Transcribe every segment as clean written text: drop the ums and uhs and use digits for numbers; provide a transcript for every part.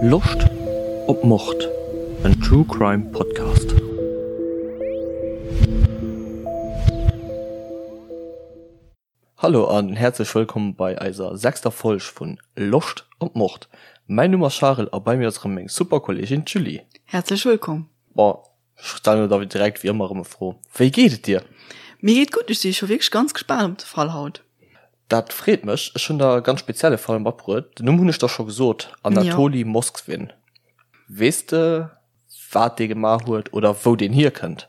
Loscht op Mord? En True Crime Podcast. Hallo an häerzlech wëllkomm bei eiser sechster Folg vun Loscht op Mord. Mäin Numm ass Charel a bei mir ass erëm meng super Kolleegin d'Julie. Häerzlech wëllkomm. Bon, ech stellen der da direkt wéi ëmmer erëm e Fro, Wéi geet et dir? Mir geet gutt, ech si scho wierklech ganz gespaant op de Fall haut. Dat freet mech. Ech hunn der e ganz spezielle Fall matbruet. Den Numm hunn ech der scho gesot, Anatoli Moskvin. Weess de, wat dee gemaach huet oder wou deen hierkënnt?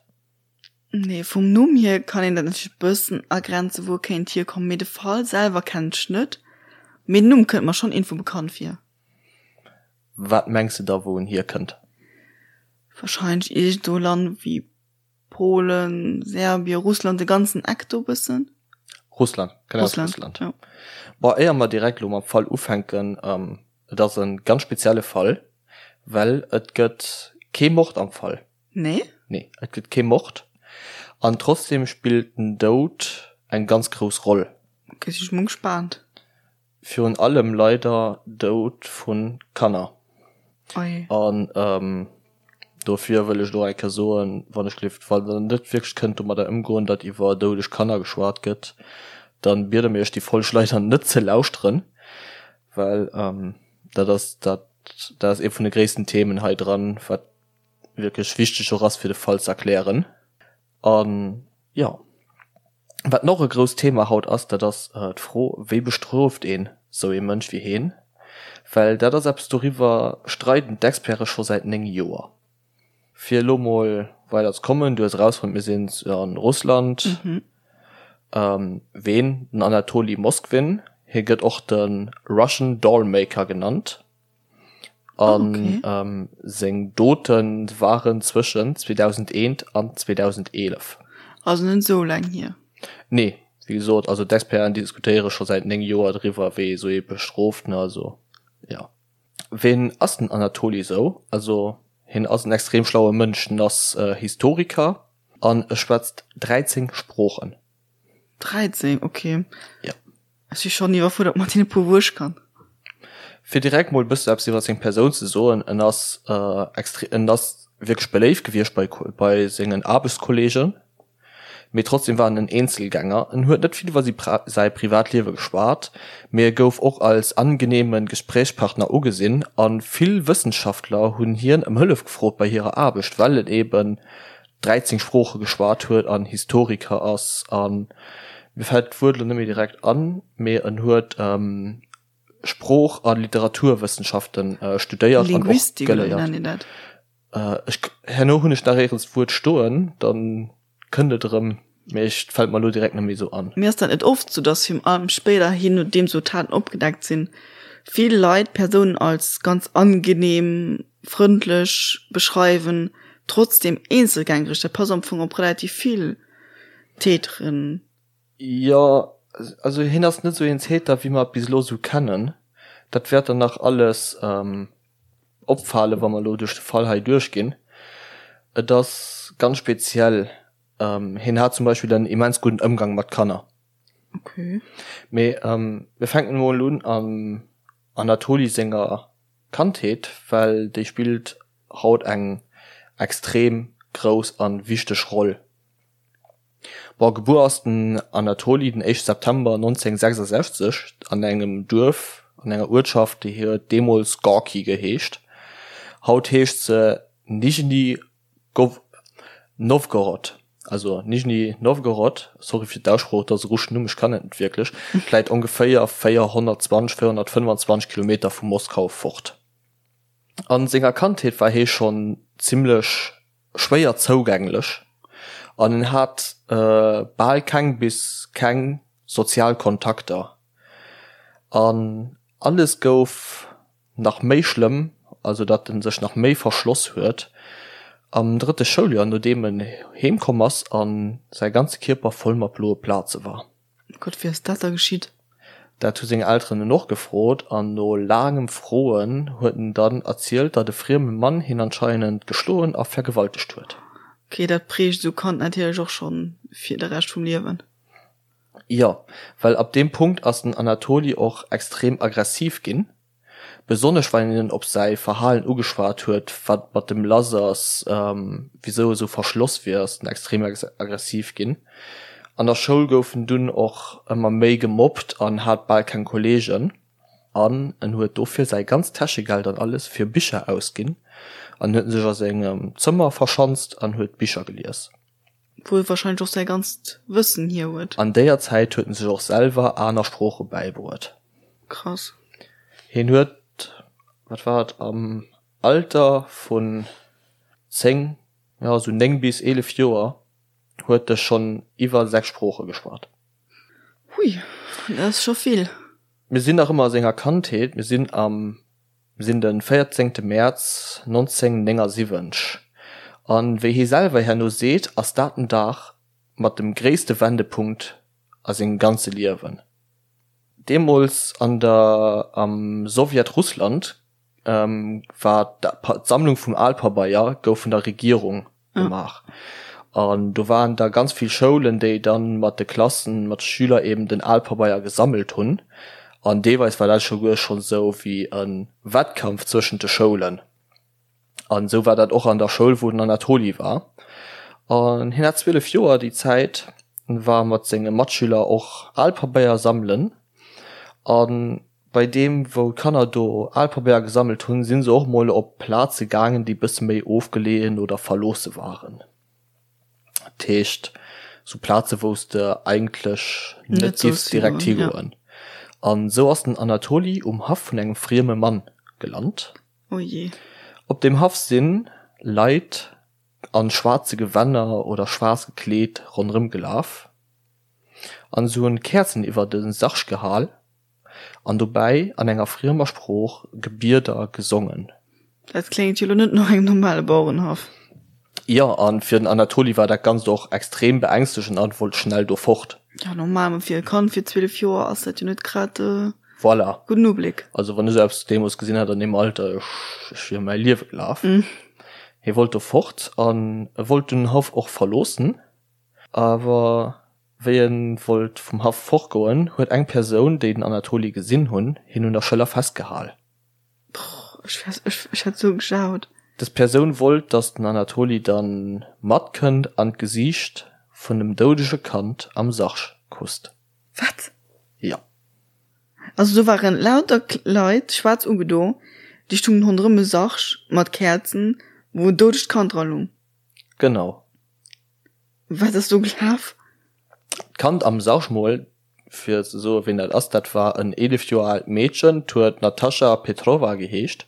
Nee, vum Numm hier kann een dat natierlech e bëssen agrenzen, wou e kéint hierkommen, mee de Fall selwer kennen ech net. Mee den Numm kënnt mer schonn iergendwou bekannt vir. Wat mengs de da, wou en hierkënnt? Warscheinlech iergendwou e Land wéi Polen, Serbien, Russland, de ganzen Eck do bëssen. Russland, kënnt aus Russland. Ja. Bon, éier mer direkt elo mam Fall ufänken, et ass e ganz spezielle Fall, well et gëtt kee Mord am Fall. Nee? Nee, et gëtt kee Mord. An trotzdem spillt den Doud eng ganz grouss Roll. Ok, si ech mol gespaant. Virun allem leider Doud vu Kanner. Oi. An dofir wëll ech elo eng Kéier soen, wann ech gelift, wann der net wierklech kënnt domadder ëmgoen, datt iwwer doudeg Kanner geschwat gëtt, dann biede mir iech déi Folg leider net ze lauschteren, well dat ass dat dat ass ee vun de gréissten Themen hei dran, wat wierklech wichteg och ass fir de Fall ze erklären. An jo, wat nach e grousst Thema haut ass, dat ass d'Fro, wéi bestrooft een sou ee Mënsch wéi heen? Well dat ass eppes, doriwwer streiden d'Experte scho säit 9 Joer. Fir elo mol weider ze kommen, du hues erausfonnt, mir sinn a Russland. Ween? Den Anatoli Moskvin, hie gëtt och de Russian Dollmaker genannt. An okay. seng Dote waren zwëschen 2001 an 2011. Also net esou laang hier. Nee, wéi gesot, also d'Experten diskutéiere scho säit 9 Joer driwwer, wéi ee sou ee bestrooft, ne, also jo. Ween ass den Anatoli sou? Also hien ass en extrem schlaue Mënsch, en ass Historiker an e schwätzt 13 Sproochen. 13, okay. Ja. Ech si schonn iwwerfuerdert mat deene puer wou ech kann. Fir direkt mol e bësse eppes iwwer seng Persoun ze soen, en ass extre en ass wierklech beléift gewiescht bei bei sengen Aarbechtskolleegen, mee trotzdem war en en Eenzelgänger. En huet net vill iwwer si säi Privatliewe geschwat, mee e gouf och als angeneeme Gesprächspartner ugesinn a vill Wëssenschaftler hunn hien ëm Hëllef gefrot bei hirer Aarbecht, well en eben 13 Sprooche geschwat huet an Historiker ass an mir fält d'Wuert elo net méi direkt an, mee en huet Sprooch a Literaturwëssenschaften studéiert an och geléiert. Ech, herno hunn ech nach éierens d'Wuert stoen, dann kënnt et erëm, mee ech, fält mer elo direkt net méi esou an. Mee ass dat net oft sou, dass virun allem spéiderhin, nodeem sou Taten opgedeckt sinn, vill Leit Persounen als ganz angenehm, frëndlech beschreiwen, trotzdem eenzelgängereg, dat passt am Fong op relativ vill Täteren. Jo, also hien ass net sou een Täter wéi mer et bis elo sou kennen. Dat wäert dann nach alles opfalen, wa mer elo duerch de Fall hei duerchginn. Et ass ganz speziell. Hien hat zum Beispill en immens gudden Ëmgang mat Kanner. Okay. Mee mir fänken emol un am Anatoli senger Kandheet, well déi spillt haut eng extrem grouss an wichteg Roll. Bon, gebuer ass den Anatoli den éischte September 1966 an engem Duerf, an enger Uertschaft, déi huet deemools Gorki geheescht. Haut heescht se Nijni Nowgorod, also Nijni Nowgorod, sorry fir d'Aussprooch, et ass e russeschen Numm, ech kann et net wierklech, läit ongeféier 420, 425 Kilometer vu Moskau fort. A senger Kandheet war hie schonn zimmlech schwéier zougänglech an en hat bal keng bis keng sozial Kontakter an alles gouf Nach méi schlëmm, also datt en sech nach méi verschloss huet am drëtte Schouljoer, nodeem en heem komm ass a säi ganze Kierper voll mat bloe Plaze war. Gott, wéi ass dat da geschitt? Dat hu seng Elteren en och gefrot an no laangem Froen huet en dann erzielt, datt e frieme Mann hien anscheinend geschloen a vergewaltegt huet. Ok, dat prägt esou Kand natierlech och schonn fir de Rescht vum Liewen. Jo, well ab deem Punkt ass den Anatoli och extrem aggressiv ginn. Besonnesch wann een en op säi Verhalen ugeschwat huet, wat mat dem lass ass, wisou e sou verschloss wier, ass en extrem aggressiv ginn. An der Schoul gouf en dunn och ëmmer méi gemobbt an hat bal keng Kolleegen. An en huet dofir säi ganzt Täschegeld an alles fir Bicher ausginn an huet sech a sengem Zëmmer verschanzt an huet Bicher gelies. Wou e wahrscheinlech och säi ganzt Wëssen hier huet. An déier Zäit huet en sech och selwer aner Sprooche bäibruet. Krass. Hien huet, wat war et, am Alter vun 10, jo esou 9 bis 11 Joer huet e schonn iwwer 6 Sprooche geschwat. Hui, dat ass scho vill. Mir sinn nach ëmmer a senger Kandheet, mir sinn am sinn de 14 Mäerz 1979 an wéi hie selwer herno seet, ass dat den Dag mat dem gréisste Wendepunkt a sengem ganze Liewen. Deemools an der am Sowjetrussland war d'Sammlung vum Alpabeier gouf vun der Regierung gemaach. An do waren da ganz vill Schoulen, déi dann mat de Klassen, mat de Schüler eben den Alpabeier gesammelt hunn. An deelweis war dat souguer schonn esou wéi e Wettkampf zwëschent de Schoulen. An esou war dat och an der Schoul, wou den Anatoli war. An hien hat 12 Joer déi Zäit, war mat senge Matschüler och Alpabeier sammelen. An Bei deem wou d'Kanner do al Pabeier gesammelt hunn, sinn se och mol op Plaze gaangen, déi bësse méi ofgeleeën oder verloosse waren. Dat heescht sou Plaze wou s de eigentlech net giffs direkt higoen. An sou ass den Anatoli um Haff vun engem frieme Mann gelant. Op deem Haff sinn Leit an schwaarze Gewänner oder schwaarz gekleet ronderëm gelaf an se hunn Käerzen iwwer de Sarg gehal. An dobäi an enger friemer Sprooch Gebieder gesongen. Dat kléngt jo lo net no engem normale Bauerenhaff. Jo, a fir den Anatoli war dat Ganzt och extrem beängstegend an wollt schnell do fort. Jo, normal, ma fir e Kand fir 12 Joer ass dat jo net grad e Voilà. gudden Ubléck. Also wann ech esou eppes deemools gesinn hätt an deem Alter, ech, ech wier ëm mäi Liewe gelaf. Hie wollt do fort an e wollt den Haff och verloossen, awer Wéi en wollt vum Haff fortgoen, huet eng Persoun, déi den Anatoli gesinn hunn, hien un der Schëller festgehal. Brrr, ech wär, ech, ech hätt sou gejaut. Des Persoun wollt, dass den Anatoli dann matkënnt an d'Gesiicht vun dem doudege Kand am Sarg kusst. Wat? Jo. Also do waren lauter Leit, schwaarz ugedo, déi stungen ronderëm e Sarg mat Käerzen, wou en doudegt Kand dra lung. Genau. Wat ass do gelaf? D'Kand am Sarg mol, fir ze soen, ween dat ass, dat war en 11 Joer aalt Meedchen, 't huet Natascha Petrova geheescht.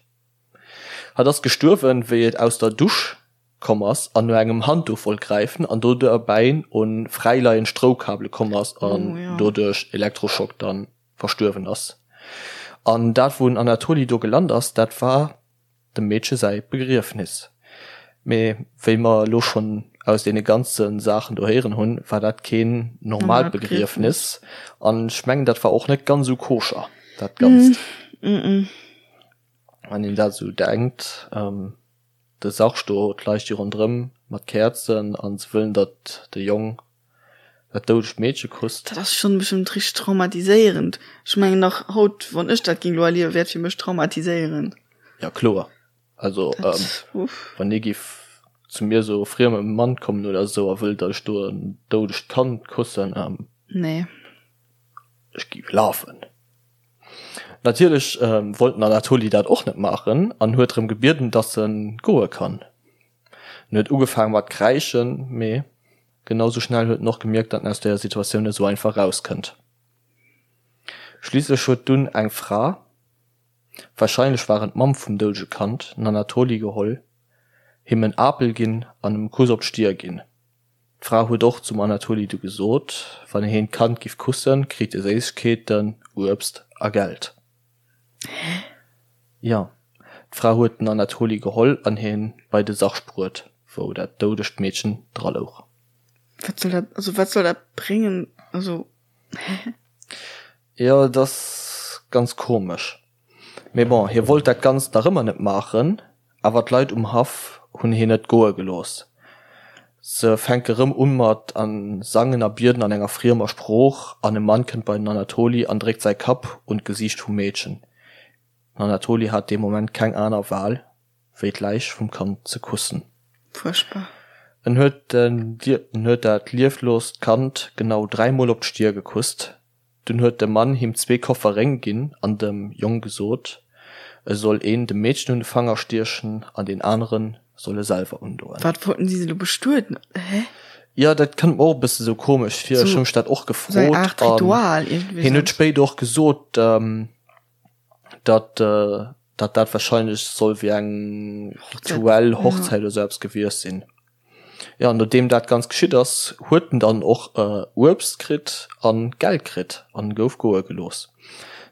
Hatt ass gestuerwen, wéi et aus der Dusch komm ass an no engem Handduch wollt gräifen an do derbäi un fräileiend Stroukabele komm ass an doduerch Elektroschock dann verstuerwen ass. An dat, wou den Anatoli do gelant ass, dat war dem Meedche säi Begriefnis. Mee wéi mer elo schonn aus deene ganze Saachen do héieren hunn, war dat keen normaalt Begriefnis. An ech mengen, dat war och net ganz esou koscher, dat Ganzt. Wann een dat esou denkt, de Sarg do, d'Leit sti ronderëm mat Käerzen a se wëllen, datt de Jong Dat doudegt Meedche kusst. Dat ass schonn bestëmmt richteg traumatiséierend. Ech mengen nach haut, wann ech dat ging lo erliewen, wär et fir mech traumatiséierend. Ja kloer. Also wann ee giff zu mir sou e frieme Mann kommen oder sou a wëllt datt ech do en doudegt Kand kussen, Nee. Ech giff lafen. Natierlech wollt den Anatoli dat och net maachen an huet drëm gebieden, datt en goe kann. En huet ugefaang mat kräischen, mee Genau sou schnell huet en och gemierkt, datt en aus deeër Situatioun net sou einfach rauskënnt. Schliisslech huet dunn eng Fra, warscheinlech war et d'Mamm vum doudege Kand, den Anatoli geholl, him en Apel ginn an em e Kuss op d'Stier ginn. D'Fra huet och zum Anatoli du gesot, wann heen d'Kand giff kussen, kritt e Séissegkeeten, Uebst a Geld. Hä? Jo, d'Fra huet den Anatoli geholl an hien bei de Sarg bruet, wou dat doudegt Meedchen dra louch. Wat soll dat, also wat soll dat bréngen, also hä? Jo, et ass ganz komesch. Mee bon, hie wollt dat Ganzt nach ëmmer net maachen, awer d'Leit um Haff hunn hien net goe gelooss. Se fänke rëm un mat a sangen a bieden an enger friemer Sprooch, an e Mann kënnt bei den Anatoli an dréckt säi Kapp un d'Gesiicht vum Meedchen. Den Anatoli hat dee Moment keng aner Wahl, wéi d'Läich vum Kand ze kussen. Fuerchtbar. En huet en huet dat liefloost Kand genau dräimol op d'Stier gekusst. Dunn huet de Mann him zwee Koffer Réng ginn an dem Jong gesot, e soll een dem Meedchen un de Fanger stiechen an deen anere soll e selwer undoen. Wat wollten si se elo bestueden? Hä? Jo, dat kënnt mer och e bësse sou komesch vir. Ech hu mech dat och gefrot. Sou eng Aart Ritual iergendwéi. Hien huet spéider och gesot, datt datt dat wahrscheinlech soll wéi eng rituell Hochzäit oder sou eppes gewiescht sinn. Jo, nodeem dat Ganzt geschitt ass, huet en dann och Uebst kritt an Geld kritt an gouf goe gelooss.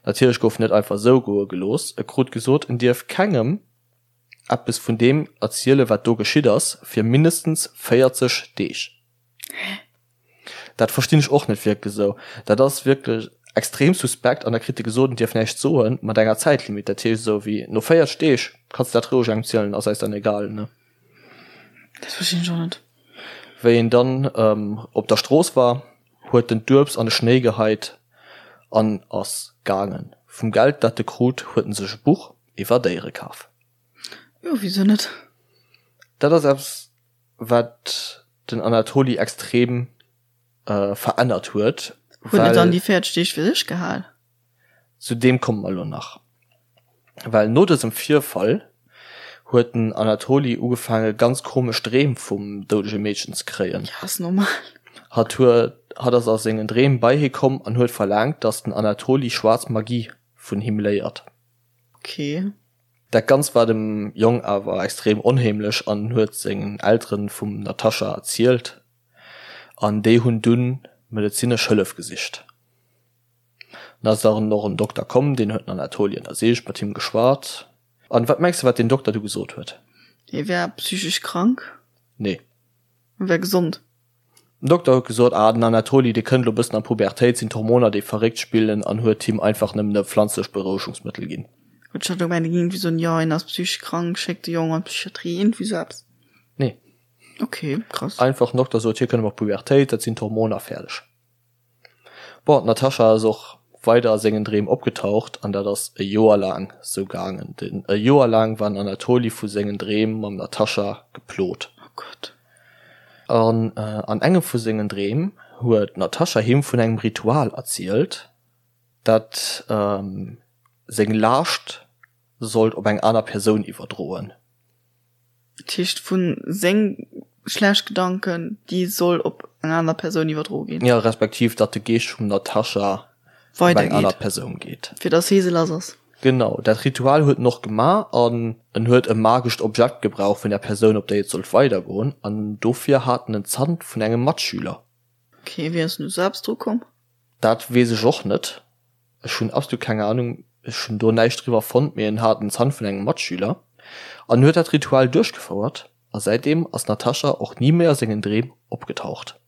Natierlech gouf en net einfach esou goe gelooss, e krut gesot, en dierf kengem eppes vun deem erziele wat do geschitt ass, fir mindestens 40 Deeg. Dat verstinn ech och net wierklech esou. Dat ass wierklech extrem suspekt an da kritt e gesot, en dierf näischt soen, mat enger Zäitlimit. Dat heescht esou wéi no 40 Deeg kanns de dat roueg engem zielen, ass eis dann egal, ne? Dat verstinn ech och net. Wéi en dann op der Strooss war, huet en d'Uebst an de Schnéi geheit an ass gaangen. Vum Geld dat e krut, huet en sech e Buch iwwer Déiere kaf. Jo, wisou net? Dat ass eppes, wat den Anatoli extrem verännert huet. Huet en dann déi 40 Deeg fir sech gehal? Zu deem komme mer elo nach. Well no dësem Virfall huet den Anatoli ugefaange ganz komesch Dreem vum doudege Meedchen ze kréien. Ja, ass normal. Hatt huet, hatt ass a sengen Dreem bei hie komm an huet verlaangt, datt den Anatoli schwaarz Magie vun him léiert. Okay. Dat Ganzt war dem Jong awer extrem onheemlech an en huet sengen Elteren vum Natascha erzielt an déi hunn dunn medezinesch Hëllef gesicht. Dann ass dann och en Dokter komm, deen huet den Anatoli ënnersicht, mat him geschwat. An wat mengs de wat deen Dokter du gesot huet? Hie wär psychesch krank? Nee. En wär gesond? Den Dokter huet gesot, ah den Anatoli dee kënnt elo bëssen an d'Pubertéit, sinn d'Hormoner déi verréckt spillen an huet him einfach nëmmen e pflanzlecht Berouegungsmëttel ginn. Huet ech hat gemengt e géing iergendwéi soen, jo hien ass psychesch krank, schéckt de Jong an d'Psychiatrie, iergendwéi sou eppes. Nee. Ok, krass. Einfach den Dokter sot, hie kënnt elo an d'Pubertéit, dat sinn d'Hormoner, fäerdeg. Bon, d'Natasha ass och weider a sengen Dreem opgetaucht an dat ass e Joer laang sou gaangen. Den e Joer laang war den Anatoli vu sengen Dreem mam Natasha geplot. Oh Gott. An an engem vu sengen Dreem huet d'Natasha him vun engem Ritual erzielt, dat seng Laascht sollt op eng aner Persoun iwwerdroen. Dat heescht vu seng schlecht Gedanken, déi soll op eng aner Persoun iwwerdro ginn. Jo, respektiv datt de Geescht vum Natascha op eng aner Persoun geet. Fir datt hie se lass ass. Genau, dat Ritual huet en och gemaach an en huet e magescht Objekt gebraucht vun der Persoun, op déi et sollt weidergoen an dofir hat en en Zant vun engem Matschüler. Ok, wéi ass en u selbst dru komm? Dat weess ech och net. Ech hunn absolut keng Ahnung, ech hunn do näischt driwwer fonnt, mee en hat en Zant vun engem Matschüler an huet dat Ritual duerchgefouert a säitdeem ass d'Natascha och ni méi a sengen Dreem opgetaucht.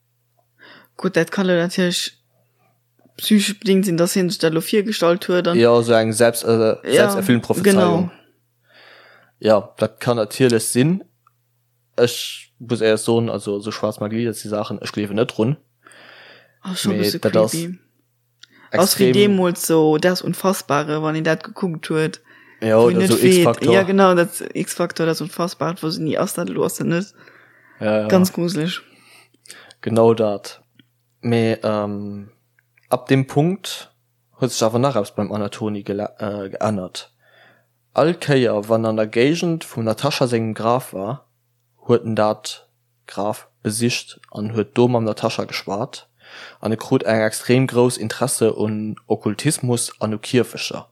Gutt, dat kann elo natierlech psychesch bedingt sinn, dass hien sech dat elo virgestallt huet an. Jo, esou eng selbst, selbsterfüllend Prophezeiung. Jo, dat kann natierlech sinn. Ech muss éierlech soen, also esou schwaarz Magie, dat si Saachen, ech gleewen net drun. Ass scho e bësse creepy. Ass wéi deemools so Das Unfassbare, wann een dat gekuckt huet. Ja, oder so X-Factor. Ja, genau, dat X-Factor, das Unfassbare, wou se ni ass dat elo, ass dat net. Ja, ja. Ganz gruseleg. Genau dat. Mee ähm, ab deem Punkt huet sech awer nach eppes beim Anatoni geännert. All Kéier wann an der Géigend vum Natascha sengem Graf war, huet en dat Graf besicht an huet do mam Natascha geschwat an e krut eng extrem grouss Interesse un Okkultismus an u Kierfecher.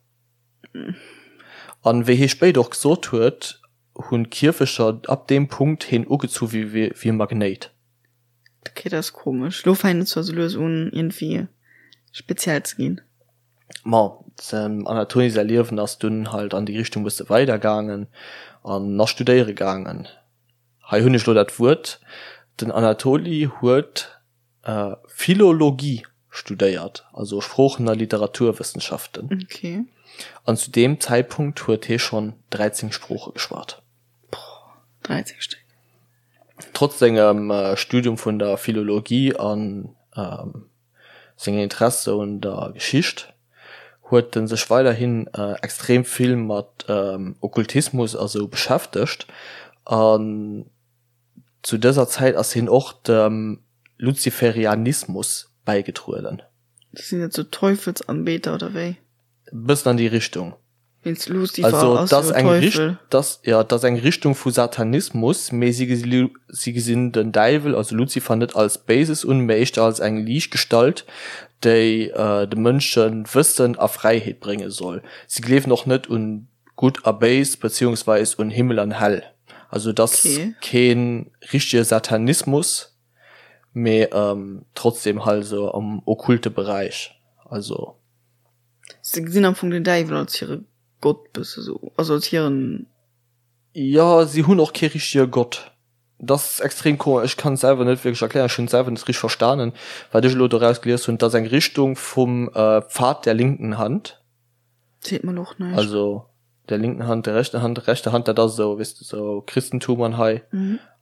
An wéi hie spéider och gesot huet, hunn d'Kierfecher ab deem Punkt heen ugezu wéi e Magnéit. Ok, dat ass komesch. Lo fänkt et zwar sou lues un iergendwéi speziell ze ginn. Ma dem Anatoli säi Liewen ass dunn halt an déi Richtung bësse weider gaangen an ass studéiere gaangen. Hei hunn ech lo dat Wuert, den Anatoli huet Philologie studéiert, also Sproochen a Literaturwëssenschaften. Okay. An zu deem Zäitpunkt huet hie schonn 13 Sprooche geschwat. Boah, 13 Stéck. Trotz sengem Studium vun der Philologie an sengem Interesse un der Geschicht. Huet en sech weiderhin extrem vill mat Okkultismus a sou beschäftegt an zu dëser Zäit ass hien och dem Luziferianismus bäigetrueden. Sinn dat sou Teufelsanbeter oder wéi? Bëssen an déi Richtung. Wéinst Lucifer ass jo Teufel. Dass, jo, et ass eng Richtung vu Satanismus, mee si si gesinn den Däiwel, also Luzifer, net als Béises un, mee éischter als eng Liichtgestalt, déi de Mënsche Wëssen a Fräiheet brénge soll. Si gleewen och net un Gutt a Béis, beziehungsweis un Himmel an Häll. Also et ass kee richtege Satanismus, mee trotzdem halt esou am okkulte Beräich. Also. Se gesinn am Fong den Däiwel als hire Gott bësse sou, also als hiren. Jo, si hunn och kee richtege Gott. Dat ass extrem komesch, ech kann et selwer net wierklech erklären, ech hunn et selwer net richteg verstanen, wat ech elo doraus gelies hunn. Et ass eng Richtung vum Pfad der linken Hand. Seet mer elo och näischt. Also der linken Hand, der rechten Hand, rechte Hand, dat ass esou, weess de, esou Christentum an hei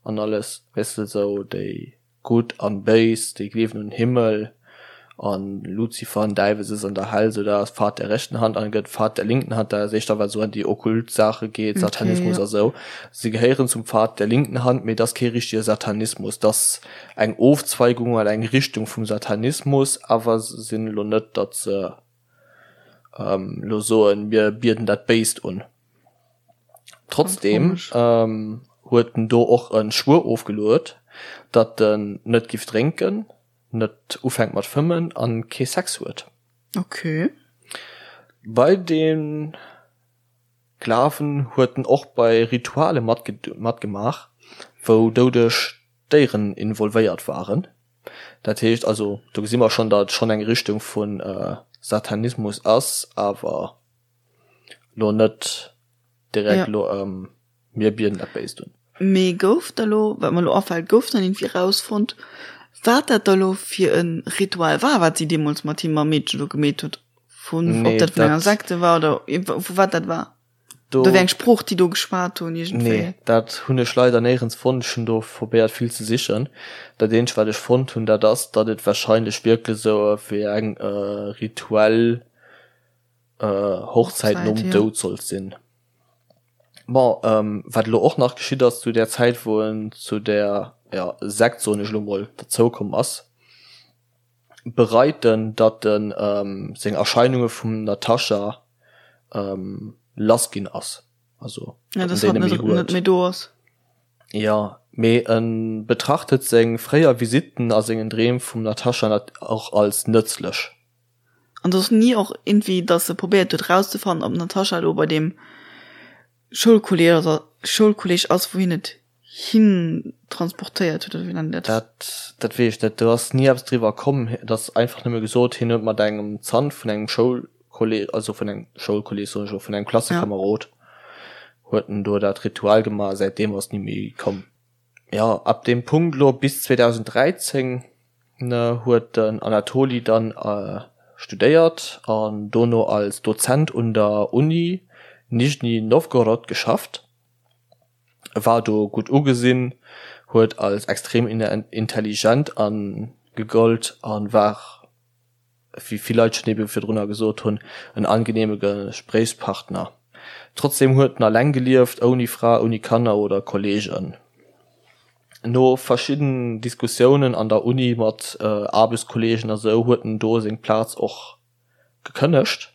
an alles, weess de, esou déi. Gutt an Béis, déi gleewen un Himmel an Luzifer an Däiwel sëtzt an der Hell, sou dat ass Pfad der rechten Hand an gëtt Pfad der linken Hand, dat ass éischter wat sou an déi okkult Saache geet, Satanismus a sou. Si gehéieren zum Pfad der linken Hand, mee et ass kee richtege Satanismus, et ass eng Ofzweigung oder eng Richtung vum Satanismus, awer se sinn elo net, datt se elo soen, mir bieden dat Béist un. Trotzdem huet en do och e Schwuer ofgeluet, datt en net giff drénken, net ufänkt mat fëmmen an kee Sex huet. Okay. Bei dem Glawen huet en och bei Rituale matgemaach, wou doudeg Déieren involvéiert waren. Dat heescht also, do gesi mer schonn, datt et schonn eng Richtung vu Satanismus ass, awer Lo net direkt lo mir bieden dat Béist un. Mee gouf da lo, wat mer lo afält, gouf dann iergendwéi rausfonnt, wat dat da lo fir e Ritual war, wat si deemools mat him mam Meedche do gemeet huet? Vun, ob dat vun enger Sekte war oder vu wat dat war? Oder wéi eng Sprooch déi do geschwat hunn iergendwéi? Nee, dat hunn ech leider néierens fonnt. Ech hunn do probéiert vill ze sichen. Dat eenzegt wat ech fonnt hunn, dat ass, datt et warscheinlech wierklech esou wéi eng rituell Hochzäit nom Doud sollt sinn. Bon, wat elo och nach geschitt ass zu där Zäit, wou en zu där, jo, Sekt, soen ech elo mol, derzoukomm ass, bereit en, datt en seng Erscheinunge vum Natascha lass ginn ass, also datt en déi net méi huet. Net méi do ass. Jo, mee e betrachtet seng fréier Visitten a sengen Dreem vum Natascha och als nëtzlech. An et ass ni och iergendwéi, datt se probéiert huet rauszefannen, ob d'Natascha elo bei deem Schoulkolleg oder Schoulkolleg ass, wou hien et hin transportéiert huet, oder wéi nennt een dat? Dat, dat weess ech net. Do ass ni eppes driwwer komm. Et ass einfach nëmme gesot, hien huet mat engem Zant vun engem Schoulkolleg, also vun engem Schoulkolleg soen ech elo, vun engem Klassekamerod huet en do dat Ritual gemaach a säitdeem ass ni méi komm. Jo, ab deem Punkt elo bis 2013 huet den Anatoli dann studéiert an dono als Dozent un der Uni Nischni Nowgorod geschafft. E war do gutt ugesinn, huet als extrem intelligent gegollt a war wéi vill Leit schonn ebe virdrunner gesot hunn, en angenehme Gespréichspartner. Trotzdem huet en alleng gelieft, ouni Fra, ouni Kanner oder Kollegen. No verschidden Diskussiounen an der Uni mat Aarbechtskollegen a sou huet en do seng Plaz och gekënnegt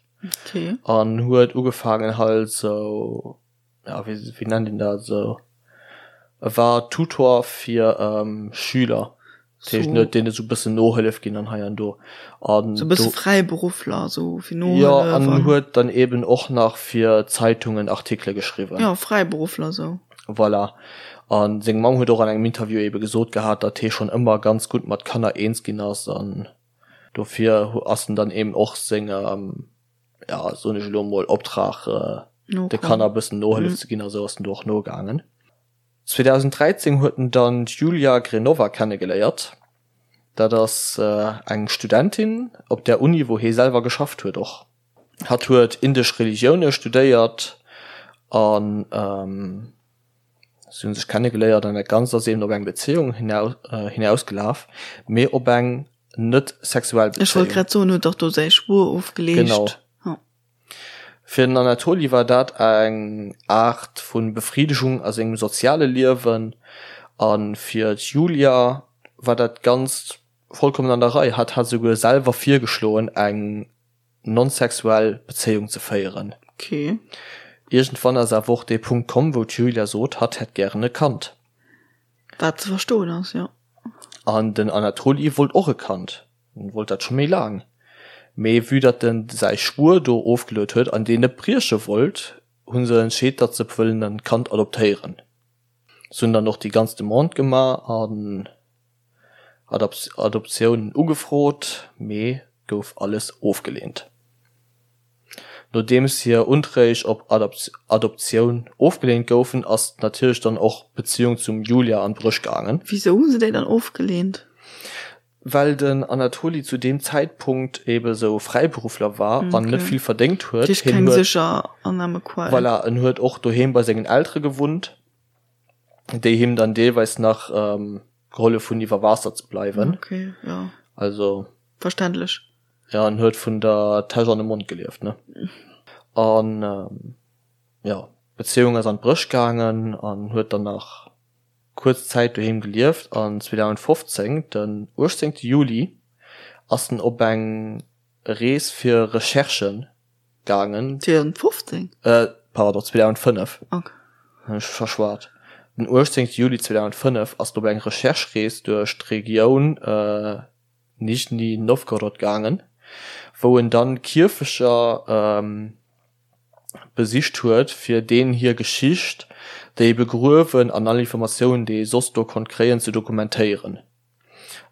an huet ugefaangen halt sou ja wéi wéi nennt een dat esou, e war Tutor fir Schüler, dat heescht en huet deene sou e bëssen Nohëllef ginn an hei an do an Sou e bësse Fräiberuffler esou fir Nohëllef jo an an huet dann eben och nach fir Zeitungen Artikele geschriwwen. Jo, Fräiberuffler esou. Voilà. A seng Mamm huet och an engem Interview ebe gesot gehat, datt hie schonn ëmmer ganz gutt mat Kanner eens ginn ass an dofir ass en dann eben och sengem ja soen ech elo mol, Optrag de Kanner e bëssen Nohëllef ze ginn a sou ass en do och nogaangen. 2013 huet en dann d'Julia Grenova kennegeléiert. Dat ass eng Studentin op där Uni wou hie selwer geschafft huet och. Hatt huet indesch Religioune studéiert an si hunn sech kennegeléiert an dat Ganzt ass eben op eng Bezéiung hinausgelaf, mee op eng net sexuell Bezéiung. Ech wollt grad soen, huet dach do säi Schwuer ofgeleescht. Genau. Fir den Anatoli war dat eng Aart vu Befridegung a sengem soziale Liewen a fir d'Julia war dat Ganzt vollkommen an der Rei. Hatt hat esouguer selwer virgeschloen, eng non-sexuell Bezéiung ze féieren. Okay. Iergendwann ass awer och dee Punkt komm, wou d'Julia sot, hatt hätt gären e Kand. Wat ze verstoen ass, jo. An den Anatoli wollt och e Kand. En wollt dat scho méi laang. Mee vue datt en säi Schwuer do ofgeluet huet an deen net brieche wollt, hu se entscheet, datt se wëllen en Kand adoptéieren. Se hunn dann och déi ganz Demande gemaach an Adoptiounen ugefrot, mee gouf alles ofgeleent. Nodeems hir Unträg op Adoptioun ofgeleent goufen, ass natierlech dann och d'Beziung zum Julia an d'Bréch gaangen. Wisou hu se déi dann ofgeleent? Well den Anatoli zu deem Zäitpunkt ebe sou Fräiberuffler war an net vill verdéngt huet. Heescht keng sécher Annahmequell. Voilà, en huet och doheem bei sengen Eltere gewunnt, déi him dann deelweis nach gehollef hunn iwwer Waasser ze bleiwen. Okay, jo. Also. Verständlech. Ja, en huet vun der Täsch an de Mond gelieft, ne? An jo, d'Bezéiung ass an d'Bréch gaangen an huet dann nach kuerz Zäit doheem gelieft an 2015, den 18 Juli, ass en op eng Rees fir Recherchen gaangen. 2015? Pardon, 2005. Ok. Hunn ech verschwat. Den 18 Juli 2005 ass en op eng Recherche-Rees duerch d'Regioun Nischni Nowgorod gaangen, wou en dann Kierfecher besicht huet, fir deenen hir Geschicht, déi begruewen an all Informatiounen, déi ee soss do konnt kréien, ze dokumentéieren.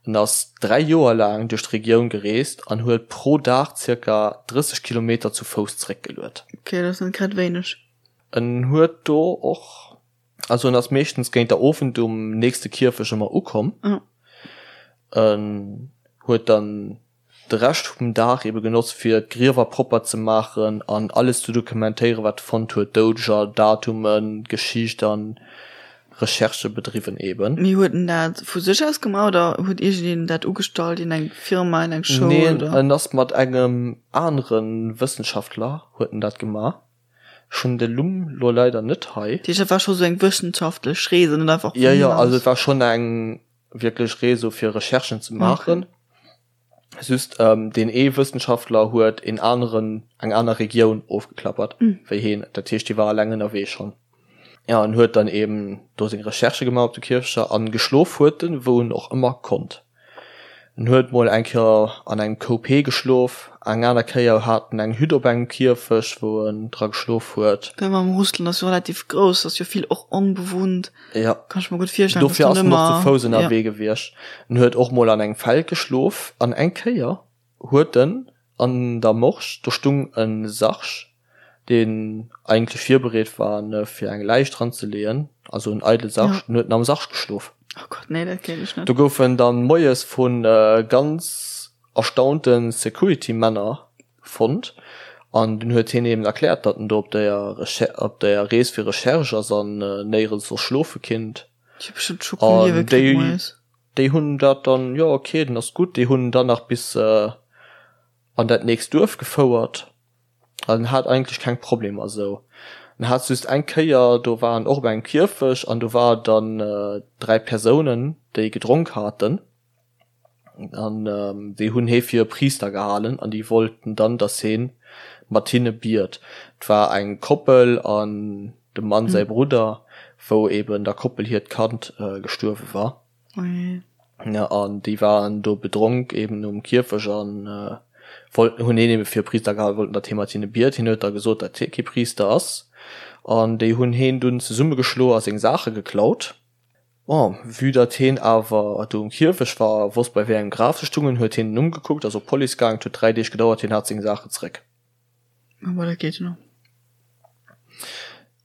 En ass 3 Joer laang duerch d'Regioun gereest an huet pro Dag zirka 30 Kilometer zu Fouss zeréckgeluet. Ok, dat ass net grad wéineg. En huet do och, also en ass meeschtens géint der Owend um nächste Kierfech ëmmer ukomm. En huet dann de Rescht vum Dag ebe genotzt fir d'Griewer propper ze maachen an alles ze dokumentéieren wat e fonnt huet, Doudeger, Datumen, Geschicht an Recherchë bedriwwen eben. Mee huet en dat vu sech aus gemaach oder huet iergendeen dat ugestallt, een eng Firma, een eng Schoul Neen, oder? En ass mat engem anere Wëssenschaftler huet en dat gemaach. Ech hunn de Numm lo leider net hei. Dat heescht dat war scho sou eng wëssenschaftlech Rees an net einfach vun Jo, jo, also et war schonn eng wierklech Rees sou fir Recherchen ze maachen. Just deen ee Wëssenschaftler huet een aneren, eng aner Regioun ofgeklappert wéi heen. Dat heescht, hie war eleng ënnerwee schonn. Jo, en huet dann eben do seng Recherchë gemaach op de Kierfechter an geschlof huet en, wou en och ëmmer konnt. En huet mol eng Kéier an engem Koup Hee geschlof, eng aner Kéier hat en eng Hütt op engem Kierfecht, wou en dra geschlof huet. Well mam Russland ass jo relativ grouss, ass jo vill och onbewunnt. Ja. Kann ech mer gutt virstellen, dass Dofir ass en och zu Fouss ënnerwee gewiescht. En huet och mol an engem Feld geschlof an eng Kéier huet en an der Morsch, do stung e Sarg, deen eigentlech virbereet war ne fir eng Läich dran ze leeën, also en eidele Sarg, en huet en am Sarg geschlof. Oh Gott, nee, dat kéint ech net. Do gouf en dann moies vu ganz erstaunte Security-Männer fonnt an dunn huet hien eben erkläert, datt en do op der op der Rees fir Recherche ass an néierens soss schlofe kinnt. An déi déi hunn dat dann, jo ok, den ass gutt, déi hunn en dann nach bis an dat nächst Duerf gefouert an en hat eigentlech keng Problemer esou. En hat just eng Kéier, do war en och op engem Kierfecht an do war dann 3 Persounen, déi gedronk haten. An déi hunn hee fir e Priister gehalen an déi wollten dann, datt hee mat hinne biet. Et war eng Koppel an dem Mann säi Brudder, wou eben der Koppel hiert Kand gestuerwe war. An déi waren do bedronk eben um Kierfecht an wollten, hunn heen ebe fir e Priister gehalen, wollten, datt hee mat hinne biet. Hien huet da gesot, datt hie kee Priister ass. An déi hunn heen dunn zesummegeschloe a seng Saache geklaut. Bon, vue datt heen awer do um Kierfecht war a wosst bei wéi engem Graf se stungen, huet heen den Numm gekuckt, ass op d'Police gaang. Et huet 3 Deeg gedauert, hien hat seng Saachen zeréck. Ah bon, dat geet jo nach.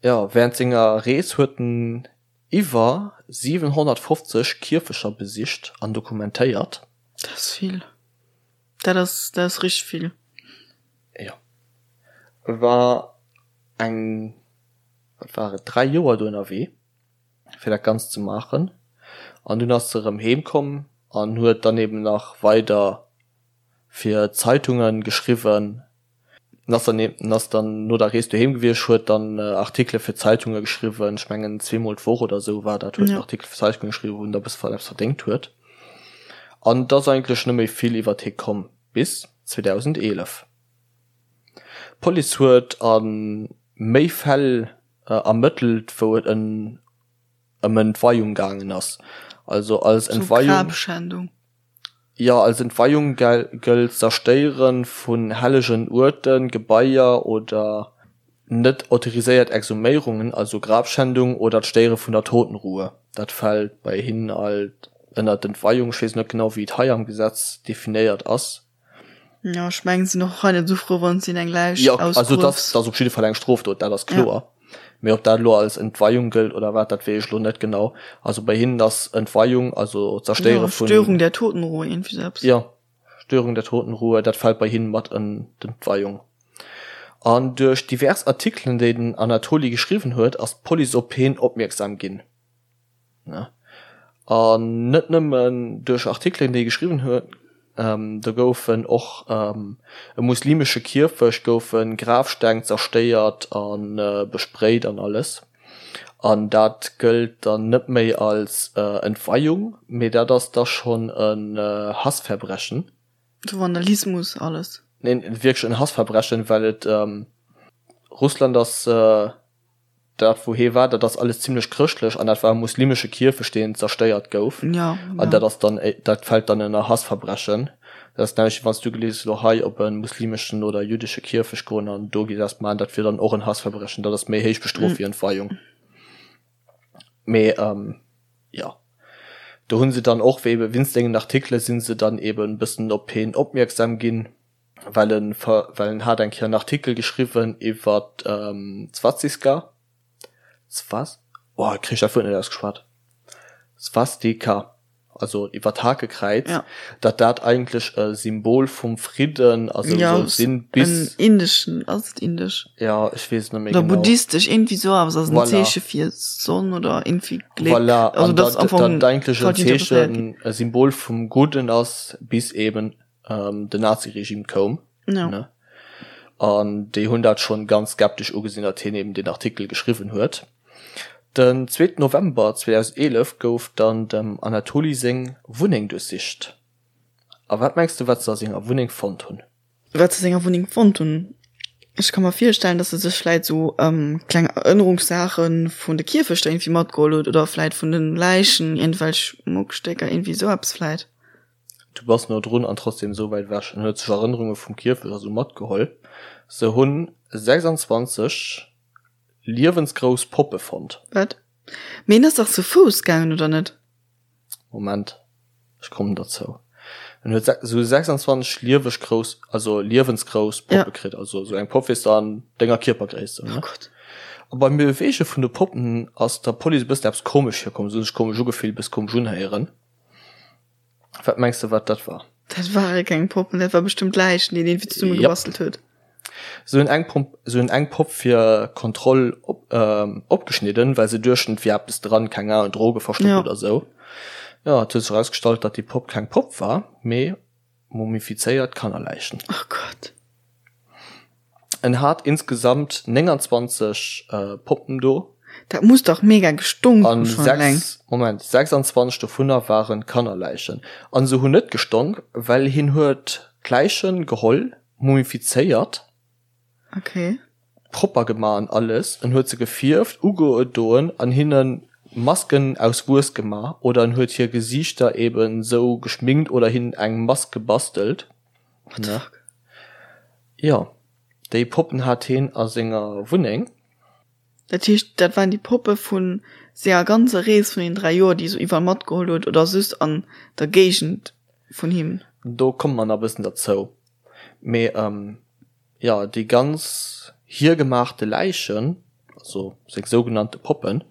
Jo, während senger Rees huet en iwwer 750 Kierfecher besicht an dokumentéiert. Dat ass vill. Dat ass, dat ass richteg vill. Jo. E war eng, wat war et, 3 Joer do ënnerwee. fir dat Ganzt ze maachen. An dunn ass se erëm heem komm an huet dann eben nach weider fir Zeitungen geschriwwen. En ass dann en ass dann no der Rees doheem gewiescht, huet dann Artikele fir Zeitunge geschriwwen, ech mengen zweemol d'Woch oder esou war dat, huet en Artikel fir Zeitunge geschriwwen, wou en da e bësse eppes verdéngt huet. An et ass eigentlech net méi vill iwwert hie komm bis 2011. D'Police huet a méi Fäll ermëttelt, wou et ëm Entweiung gaangen ass. Also als Entweiung. Grabschändung. Jo, als Entweiung gëllt d'Zerstéiere vun hellegen Uerten, Gebaier oder net autoriséiert Exhuméierungen, also Grabschändung oder d'Stéiere vun der Totenruhe. Dat fält bei hinnen alt ënner d'Entweiung. Ech weess net genau, wéi et hei am Gesetz definéiert ass. Jo, ech mengen, se sinn och hei net esou frou, wann s de hinnen eng Läich Jo, also et ass op jidde Fall eng Strofdot, dat ass kloer. Mee ob dat elo als Entweihung gëllt oder wat, dat weess ech elo net genau. Also bei hinnen ass Entweihung, also d'Zerstéiere vun. Störung der Totenruhe, iergendwéi sou eppes. Jo, Störung der Totenruhe, dat fält bei hinnen mat ënn d'Entweihung. An duerch divers Artikelen, déi den Anatoli geschriwwen huet, ass d'Police op heen opmierksam ginn. An net nëmmen duerch Artikelen, déi e geschriwwen huet, do goufen och e muslimesche Kierfecht goufe Grafsteng zerstéiert a besprayt an alles. An dat gëllt dann net méi als Entweiung, mee dat ass da schonn en Hassverbrechen. Sou Vandalismus alles. Neen, wierklech en Hassverbrechen, well et Russland ass. Dat wou hee war, dat ass alles zimlech chrëschtlech an dat war e muslimesche Kierfecht deen zerstéiert gouf. Ja, An dat ass dann, dat fält dann ënner Hassverbrechen. Dat ass näischt wéi wann s du gelies elo hei op e muslimeschen oder jüddesche Kierfecht goen an do gees eppes maachen, dat wier dann och en Hassverbrechen. Dat ass méi héich bestrooft wéi Entweihung. Mee jo, do hu se dann och ebe wéinst sengen Artikele si se dann eben e bëssen op heen opmierksam ginn. well en well en hat eng Kéier en Artikel geschriwwen iwwer d'Swaziska, Swas, oh ech kréich dat Wuert net ausgeschwat, Swastika, also iwwer d'Hakekräiz, Ja. datt dat eigentlech e Symbol vum Fridden a sou Ja, soll sinn, bis. en indeschen, ass et indesch? Ja, ech weess et net méi Oder genau. buddhistesch, iergendwéi sou eppes, ass en Voilà. Zeeche fir Sonn oder iergendwéi Gléck. Voilà, Also an dat ass datt am Fong dat eigentlech en falsch interpretéiert ginn. Zeechen, e Symbol vum Gudden ass, bis eben den Naziregime koum, Ja. ne? An déi hunn dat schonn ganz skeptesch ugesinn, datt hien eben deen Artikel geschriwwen huet. Den zweeten November 2011 gouf dann dem Anatoli seng Wunneng duerchsicht. A wat mengs de, wat se a senger Wunneng fonnt hunn? Wat se a senger Wunneng fonnt hunn? Ech ka mer virstellen, datt e sech vläit sou kleng Erënnerungssaache vun de Kierfechter iergendwéi matgeholl huet oder vläit vun de Läichen iergendwelch Muckstécker, iergendwéi sou eppes vläit. Du bass no drun an trotzdem esou wäit ewech. En huet sech Erënnerunge vum Kierfecht a sou matgeholl. Se hunn 26 liewensgrouss Poppe fonnt. Wat? Mee en ass dach zu Fouss gaangen, oder net? Moment, ech kommen derzou. En huet se hu 26 lieweg grouss, also liewensgrouss Poppe kritt. Also sou eng Popp weess de an denger Kierpergréisst, ne? Oh Gott. A beim Beweege vun de Poppen ass der Police e bëssen eppes komesch virkomm. Se hu sech komesch ugefillt, e bësse komesch unhéieren. Wat mengs de wat dat war? Dat ware keng Poppen, dat war bestëmmt Läichen, déi en iergendwéi zesumme gebastelt huet. Se hunn eng Pomp, se hunn eng Popp fir Kontroll op, opgeschnidden, well se duechten, et wier eppes dran, keng Ahnung, Droge verstoppt Ja. oder sou. Jo, et huet sech erausgestallt, datt déi Popp keng Popp war, mee mumifizéiert Kannerläichen. Oh Gott. En hat insgesamt 29 Poppen do. Dat muss dach mega gestonk hu schonn eleng. Moment, 26 dovunner waren Kannerläichen. An se hunn net gestonk, well hien huet d'Läichen geholl, mumifizéiert, Okay. propper gema an alles. En huet se gefierft, ugedoen an hinnen Masken aus Wues gema oder en huet hir Gesiichter eben sou geschminkt oder hinnen eng Mask gebastelt. What the fuck? Jo, déi Poppen hat heen a senger Wunneng. Dat heescht, dat waren déi Poppe vu senger ganzer Rees vun den 3 Joer, déi e sou iwwerall matgeholl huet, oder soss an der Géigend vun him? Do komme mer nach e bëssen derzou. Mee jo, déi ganz hiergemaachte Läichen, also seng sougenannte Poppen,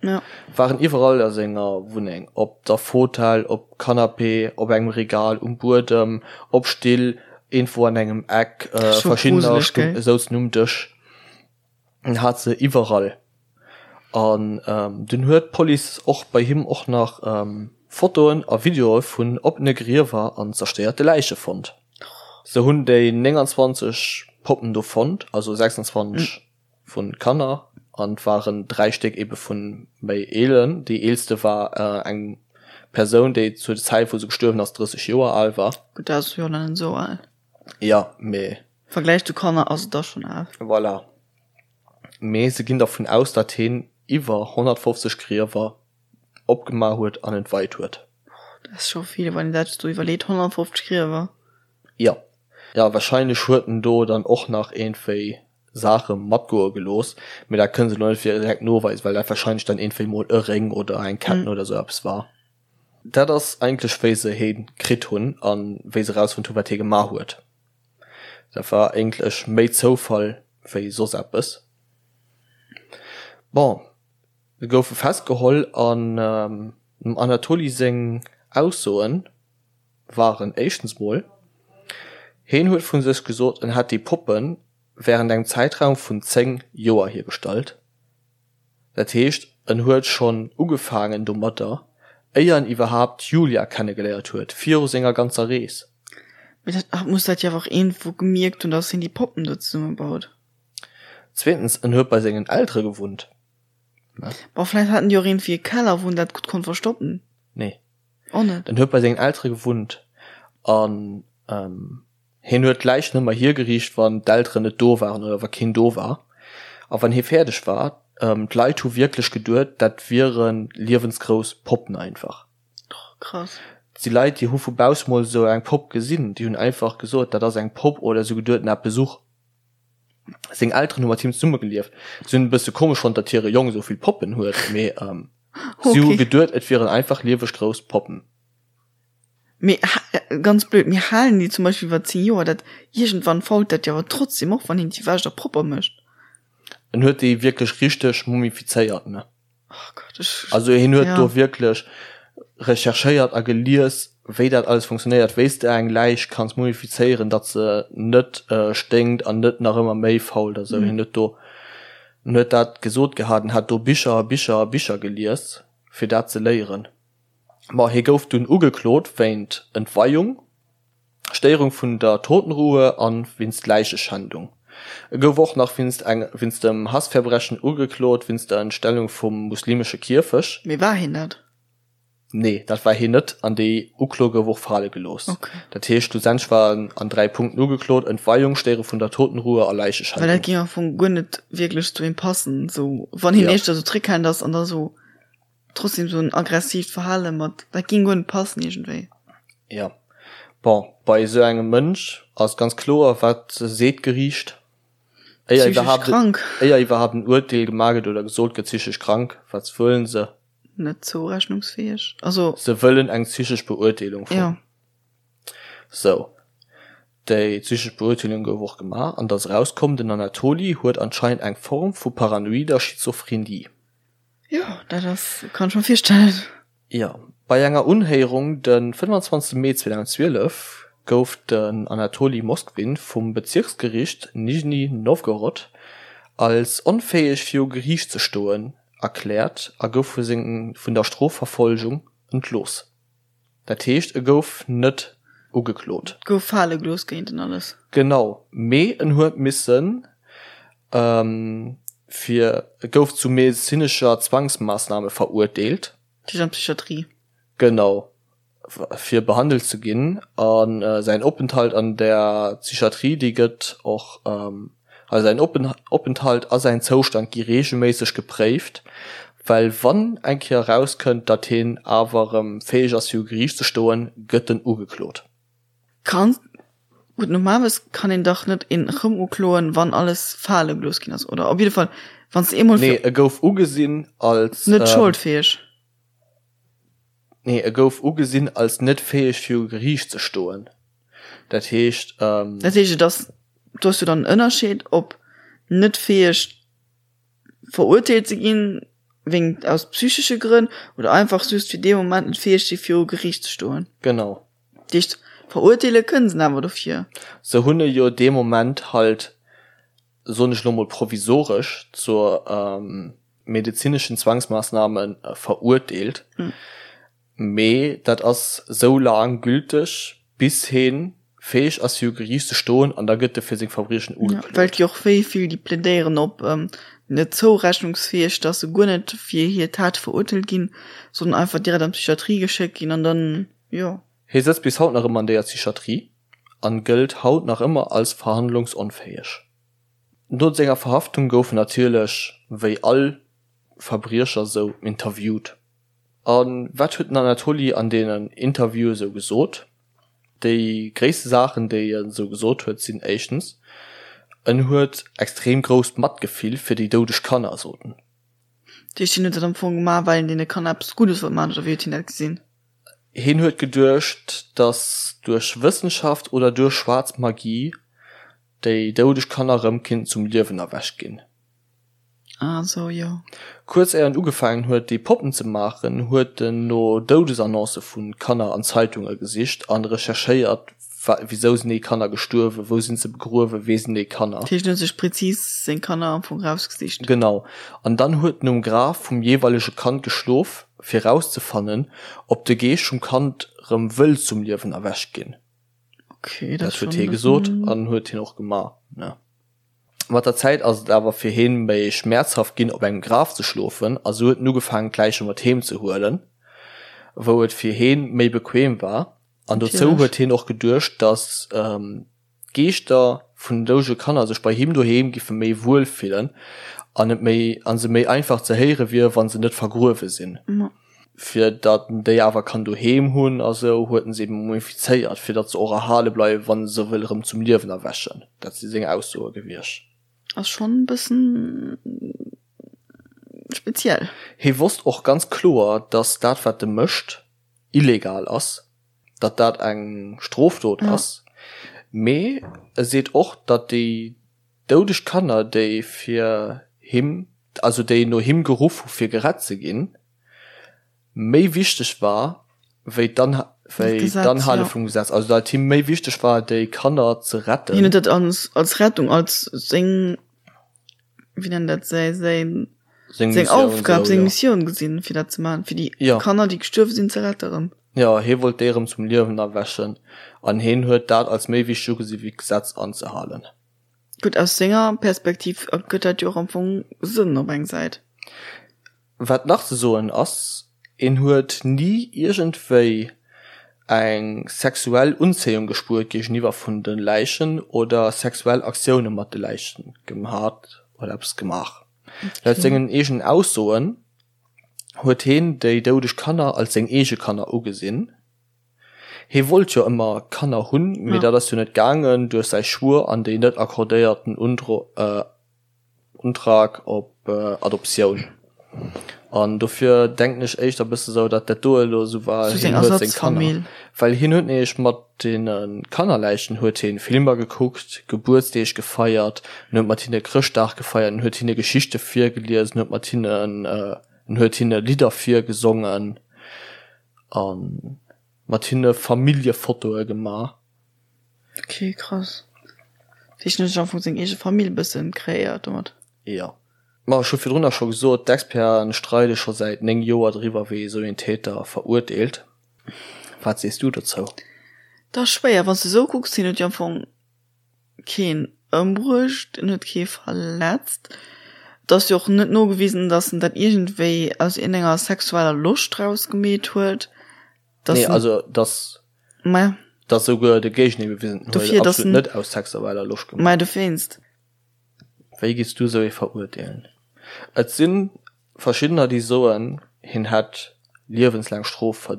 waren iwwerall a senger Wunneng, op der Fotell, op Canapé, op engem Regal, um Buedem, op Still, iergendwou an engem Eck, verschiddener souzen um Dësch. En hat se iwwerall. An dunn huet d'Police och bei him och nach Fotoen a Videoe vun oppene Griewer an zerstéierte Läiche fonnt. Se hunn déi 29. Poppen do fonnt, also 26 vu Kanner an et waren 3 Stéck ebe vu méi eelen. Déi eelste war eng Persoun, déi zur Zäit wou se gestuerwen ass 30 Joer al war. Gutt, dat ass jo nach net esou al. Jo, mee. Vergläich zu Kanner ass et da schonn al. Voilà. Mee se ginn dervun aus, datt hien iwwer 150 Griewer opgemaach huet an entweit huet. Dat ass scho vill, wann een dat sou iwwerleet, 150 Griewer. Jo. Jo, wahrscheinlech huet en do dann och nach iergendwéi Saache matgoe gelooss, mee dat kënne se elo net direkt noweisen, well dat wahrscheinlech dann iergendwéi mol e Réng oder eng Ketten oder sou eppes war. Dat ass eigentlech wéi se hee kritt hunn a wéi se erausfonnt hunn, wat hie gemaach huet. Dat war eigentlech méi Zoufall wéi soss eppes. Bon, se goufe festgeholl an dem Anatoli seng Aussoen waren éischtens mol, heen huet vu sech gesot, en hätt déi Poppe wärend engem Zäitraum vun 10 Joer hiergestallt. Dat heescht, en huet schonn ugefaangen domatter, éier en iwwerhaapt d'Julia kennegeléiert huet, viru senger ganzer Rees. Mee dat hat muss dat jo awer och iergendwou gemierkt hunn, dass hien déi Poppen do zesummebaut. Zweetens, en huet bei sengen Eltere gewunnt, ne? Bon, vläicht haten déi och iergendwéi e Keller, wou en dat gutt konnt verstoppen. Nee. Och net? En huet bei sengen Eltere gewunnt an Hien huet d'Läich nëmmer hiergeriicht, wann d'Elteren net do waren oder wa keen do war. A wann hie fäerdeg war, d'Leit hu wierklech geduet, dat wiere liewensgrouss Poppen einfach. Oh, krass. Et si Leit, déi hu vu bausse mol esou eng Popp gesinn, déi hunn einfach gesot, dat ass eng Popp oder se hu geduet, en hat Besuch. Seng Elteren hu mat him zesummegelieft. Si hunn e bësse komesch fonnt, datt hire Jong esou vill Poppen huet, mee si hu geduet, et wieren einfach lieweg grouss Poppen. Mee ganz blöd, mir halen déi zum Beispill iwwer 10 Joer, dat iergendwann fault dat jo awer trotzdem och, wann een déi wäscht a propper mécht. En huet déi wierklech richteg mumifizéiert, ne? Oh Gott, ech. Also hien huet do wierklech recherchéiert a gelies, wéi dat alles funktionéiert, wéi s de eng Läich kanns mumifizéieren, datt se net sténkt an net nach ëmmer méi fault a sou. Hien huet do, en huet dat gesot gehat, en hat do Bicher a Bicher a Bicher gelies, fir dat ze léieren. Ma hie gouf dunn ugeklot wéint Entweiung, Stéierung vun der Totenruhe a wéinst Läicheschändung. E gouf och nach wéinst eng wéinst dem Hassverbrechen ugeklot wéinst der Entstellung vum muslimesche Kierfech. Mee war hien dat? Nee, dat war hien net an déi Uklo gouf och fale gelooss. Okay. Dat heescht, schlussendlech war en an 3 Punkten ugeklot, Entweiung, Stéiere vun der Totenruhe a Läicheschändung. Well dat géing am Fong guer net wierklech zu him passen, sou wann hien éischter sou zréckhalend ass an da sou Trotzdem sou en aggressivt Verhale mat, dat ging guer net passen iergendwéi. Jo, bon, bei esou engem Mënsch ass ganz kloer, wat seet d'Geriicht, éier Psychesch iwwerhaapt, krank. éier iwwerhaapt en Urteel gemaach gëtt oder gesot gëtt, psychesch krank, wat wëllen se? Net zourechnungsfäeg, also. Se wëllen eng psychesch Beurteelung vum. Jo. Sou, déi psychesch Beurteelung gouf och gemaach an et ass erauskomm, den Anatoli huet anscheinend eng Form vu paranoider Schizophrenie. Jo, dat ass, kann ech mer virstellen. Jo, bei enger Unhéierung de 25 Mee 2012 gouf den Anatoli Moskvin vum Bezirksgericht Nizhny Nowgorod als onfäeg viru Geriicht ze stoen erkläert a gouf vun der Strofverfolgung entlooss. Dat heescht, e gouf net ugeklot. Et gouf fale gelooss géint en alles. Genau, mee en huet missen fir, e gouf zu medezinescher Zwangsmaassname verurteelt. Dat heescht an d'Psychiatrie. Genau, fir behandelt ze ginn. A säin Openthalt an der Psychiatrie, dee gëtt och Also säin Openthalt a säin Zoustand gi reegelméisseg gepréift, well wann eng Kéier erauskënnt, datt hien awer erëm fäeg ass viru Geriicht ze stoen, gëtt en ugeklot. Kann, gutt normalerweis kann een dach net een erëm ukloen, wann alles fale gelooss ginn ass, oder? Op jidde Fall, wann s de eemol. Nee, e gouf ugesinn als. Net scholdfäeg. Nee, e gouf ugesinn als net fäeg viru Geriicht ze stoen. Dat heescht. Dat heescht, et ass, do ass jo dann en Ënnerscheed, ob net fäeg verurteelt ze ginn, wéingt aus psychesche Grënn, oder einfach just fir dee Moment net fäeg si viru Geriicht ze stoen. Genau. Dat heescht, verurteele kënnen se en awer dofir. Se hunn e jo dee Moment halt, soen ech elo mol provisoresch, zur medezineschen Zwangsmaassname verurteelt. Mee dat ass sou laang gülteg, bis hee Fäeg ass viru Geriicht ze stoen an da gëtt e fir seng Verbriechen ugeklot. Well et gi och wéi vill déi plädéieren op net zourechnungsfäeg, dass se guer net fir hir Tate verurteelt ginn, sondern einfach direkt an d'Psychiatrie geschéckt ginn an dann, jo. Hie sëtzt bis haut nach ëmmer an deeër Psychiatrie an gëllt haut nach ëmmer als verhandlungsonfäeg. No senger Verhaftung gouf en natierlech wéi all Verbriecher sou interviewt. A wat huet den Anatoli an deenen Interviewe sou gesot? Déi gréisste Saachen, déi en esou gesot huet, sinn éischtens, en huet extrem grousst Matgefill fir déi doudeg Kanner, sot en. Dat heescht, hien huet dat am Fong gemaach, well en deene Kanner eppes Guddes wollt maachen, oder wéi huet hien dat gesinn? Hien huet geduecht, datt duerch Wëssenschaft oder duerch schwaarz Magie déi doudeg Kanner erëm kinnten zum Liewen erwächt ginn. Ah sou, jo. Kuerz éier en ugefaangen huet déi Poppen ze maachen, huet en no Doudesannoncë vu Kanner an Zeitunge gesicht an recherchéiert, wisou sinn déi Kanner gestuerwen, wou sinn se begruewen, wee sinn déi Kanner. Dat heescht en huet sech prezis seng Kanner am Fong rausgesicht. Genau. An dann huet en um Graf vum jeeweilege Kand geschlof, fir rauszefannen, ob de Geescht vum Kand rëm wëll zum Liewen erwächt ginn. Okay, dat huet hie gesot an huet hien och gemaach, ne. Mat der Zäit ass et awer fir heen méi schmäerzhaft ginn op engem Graf ze schlofen a sou huet en ugefaangen d'Läiche mat heem ze huelen, wou et fir heen méi bequem war. An dozou huet heen och geduecht, dass d'Geeschter vun den doudege Kanner sech bei him doheem giffe méi wuel fillen an et méi an se méi einfach ze héiere wier wann se net vergruewe sinn. Fir datt en déi awer kann doheem hunn a sou, huet en se eben mumifizéiert, fir datt se och erhale bleiwen, wann e se wëll erëm zum Liewen erwächen. Dat si seng Aussoe gewiescht. Ass schonn e bëssen speziell. Hie wosst och ganz kloer, datt dat, wat e mécht, illegal ass, datt dat eng Strofdot ass. Mee e seet och, datt déi doudeg Kanner, déi fir him, also déi no him geruff hu fir gerett ze ginn, méi wichteg war wéi d'Anhale vum Gesetz, also datt et him méi wichteg war déi Kanner ze retten. Hien huet dat als als Rettung, als seng, wéi nennt dat, säi säin seng Aufgab, seng Missioun gesinn, fir dat ze maachen, fir déi Kanner, déi gestuerwe sinn, ze rette rëm. Jo, hie wollt déi erëm zum Liewen erwächen an hien huet dat als méi wichteg ugesi wéi d'Gesetz anzehalen. Gutt, aus senger Perspektiv ergëtt dat jo och am Fong Sënn op eng Säit. Wat nach ze soen ass, en huet ni iergendwéi eng sexuell Unzéiung gespuert géigeniwwer vun de Läichen oder sexuell Aktioune mat de Läichen gehat oder eppes gemaach. Laut sengen eegenen Aussoen huet heen déi doudeg Kanner als seng eege Kanner ugesinn. Hee wollt jo ëmmer Kanner hunn, mee dat ass jo net gaangen duerch säi Schwuer an déi net accordéierten Untrag op Adoptioun. An dofir denken ech éischter bësse sou, datt dat do elo sou war, hien huet seng Kanner, well hien huet nämlech mat deene Kannerläichen huet hien Filmer gekuckt, Gebuertsdeeg gefeiert, en huet mat hinne Chrëschtdag gefeiert, en huet hinne Geschichte virgelies, en huet mat hinnen, en huet hinne Lidder virgesongen a mat hinne Familljefotoe gemaach. Ok krass. Dat heescht en huet sech am Fong seng eege Famill bëssen kreéiert domat? Jo. Ma ech hu virdrunner scho gesot, d'Experten streide scho säit 9 Joer driwwer wéi ee sou een Täter verurteelt. Wat sees du dozou? Dat ass schwéier. Wann s de esou kucks, hien huet jo am Fong keen ëmbruecht, en huet kee verletzt. Et ass jo och net nogewisen, datt en dat iergendwéi aus iergendenger sexueller Loscht raus gemeet huet. Dass Nee, also dass Ma dass souguer de Géigendeel bewisen huet, Dofir, dass absolut net aus sexueller Loscht gemaach. Mä dowéinst. Wéi giffs du esou ee verurteelen? Et si verschiddener déi soen, hien hätt liewenslaang Strof